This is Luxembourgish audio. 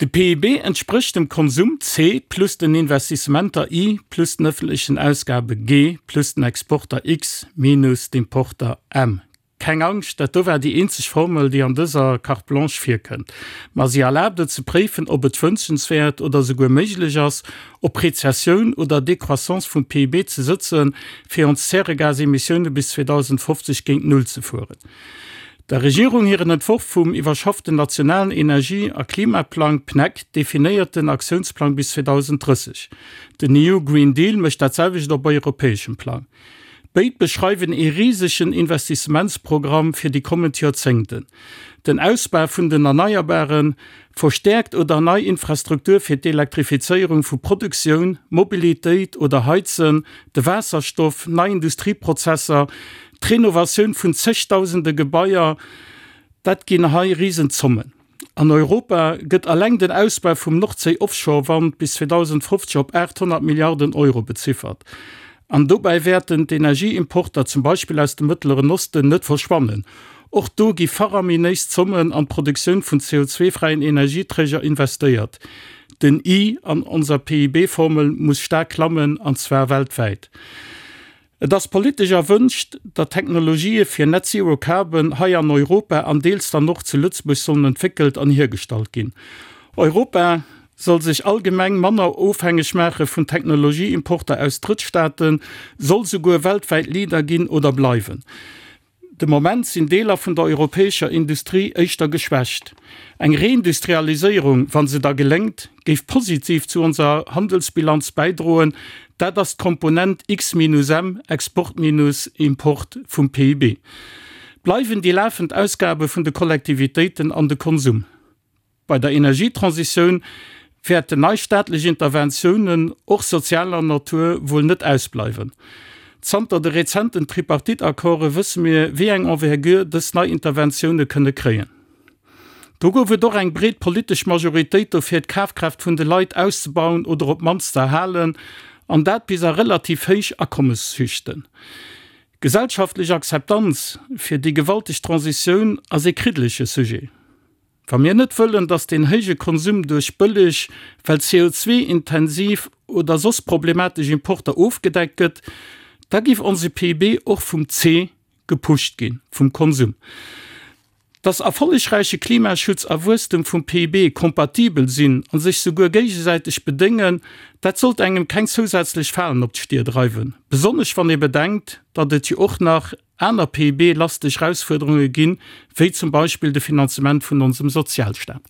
De PIB entsprécht dem Konsum, C, plus den Investissementer, I, plus den ëffentlechen Ausgabe, G, plus den Exporter, X, minus d'Importer, M. Keng Angscht, dat do war déi eenzeg Formel, déi an dëser Carte blanche virkënnt. Ma si erlaabt et ze préifen, ob et wënschenswäert oder souguer méiglech ass, op Rezessioun oder Décroissance vum PIB ze sëtzen, fir ons Zäregasemissioune bis 2050 géint Null ze fueren. Der Regierung hiren Entworf vum iwwerschafften nationalen Energie a Klimaplang, PNEC, definéiert den Aktiounsplang bis 2030. Den EU Green Deal mécht dat selwecht op europäeschem Plang. Béid beschreiwen ee risegen Investissementsprogramm fir déi kommend Joerzéngten. Den Ausbau vun den Erneierbaren, verstäerkt oder nei Infrastruktur fir d'Elektrifizéierung vu Produktioun, Mobilitéit oder Heizen, de Waasserstoff, nei Industrieprozesser, d'Renovatioun vun zegdausende Gebaier, dat ginn hei Risenzommen. An Europa gëtt alleng den Ausbau vum Nordséi-Offshore-Wand bis 2050 op 800 Milliarden Euro beziffert. An dobäi wäerten d'Energieimporter, zum Beispill aus dem Mëttleren Osten, net verschwannen. Och do gi faraminéis Zommen an d'Produktioun vun CO2-fräien Energieträger investéiert. Den I an onser PIB-Formel muss staark klammen, an zwar weltwäit. Et ass politesch erwënscht, datt Technologië fir Net Zero Carbon hei an Europa an deels dann och zu Lëtzebuerg sollen entwéckelt an hiergestallt ginn. Europa soll sech allgemeng manner ofhängeg maache vun Technologieimporter aus Drëttstaaten, soll souguer weltwäit Leader ginn oder bleiwen. De Moment sinn Deeler vun der europäescher Industrie éischter geschwächt. Eng Reindustrialiséierung, wa se da geléngt, géif positiv zu onser Handelsbilanz bäidroen. Dat ass d'Komponent X minus M, Export minus Import, vum PIB. Bleiwen déi lafend Ausgabe vun de Kollektivitéiten an de Konsum. Bei der Energietransitioun wäerten nei staatlech Interventiounen, och sozialer Natur, wuel net ausbleiwen. Zanter de rezenten Tripartite-Accorde wësse mir, wéi eng Envergure dës nei Interventioune kënne kréien. Do gouf et och eng breet politesch Majoritéit dofir, d'Kafkraaft vun de Leit auszebauen oder op d'mannst ze erhalen, an dat bis a relativ héich Akommesschichten. Gesellschaftlech Akzeptanz fir déi gewalteg Transitioun ass ee kriddelege Sujet. Wa mir net wëllen, datt deen héije Konsum duerch bëlleg, well CO2-intensiv oder soss problematesch Importer ofgedeckt gëtt, da giff onse PIB och vum C gepusht ginn, vum Konsum. Datt erfollegräiche Klimaschutz a Wuesstem vum PIB kompatibel sinn a sech souguer géigesäiteg bedéngen, dat sollt engem keng zousätzlech Falen op d'Stier dreiwen, besonnesch wann ee bedenkt, datt et jo och nach aner PIB-lasteg Erausfuerderunge ginn, wéi zum Beispill de Finanzement vun onsem Sozialstaat.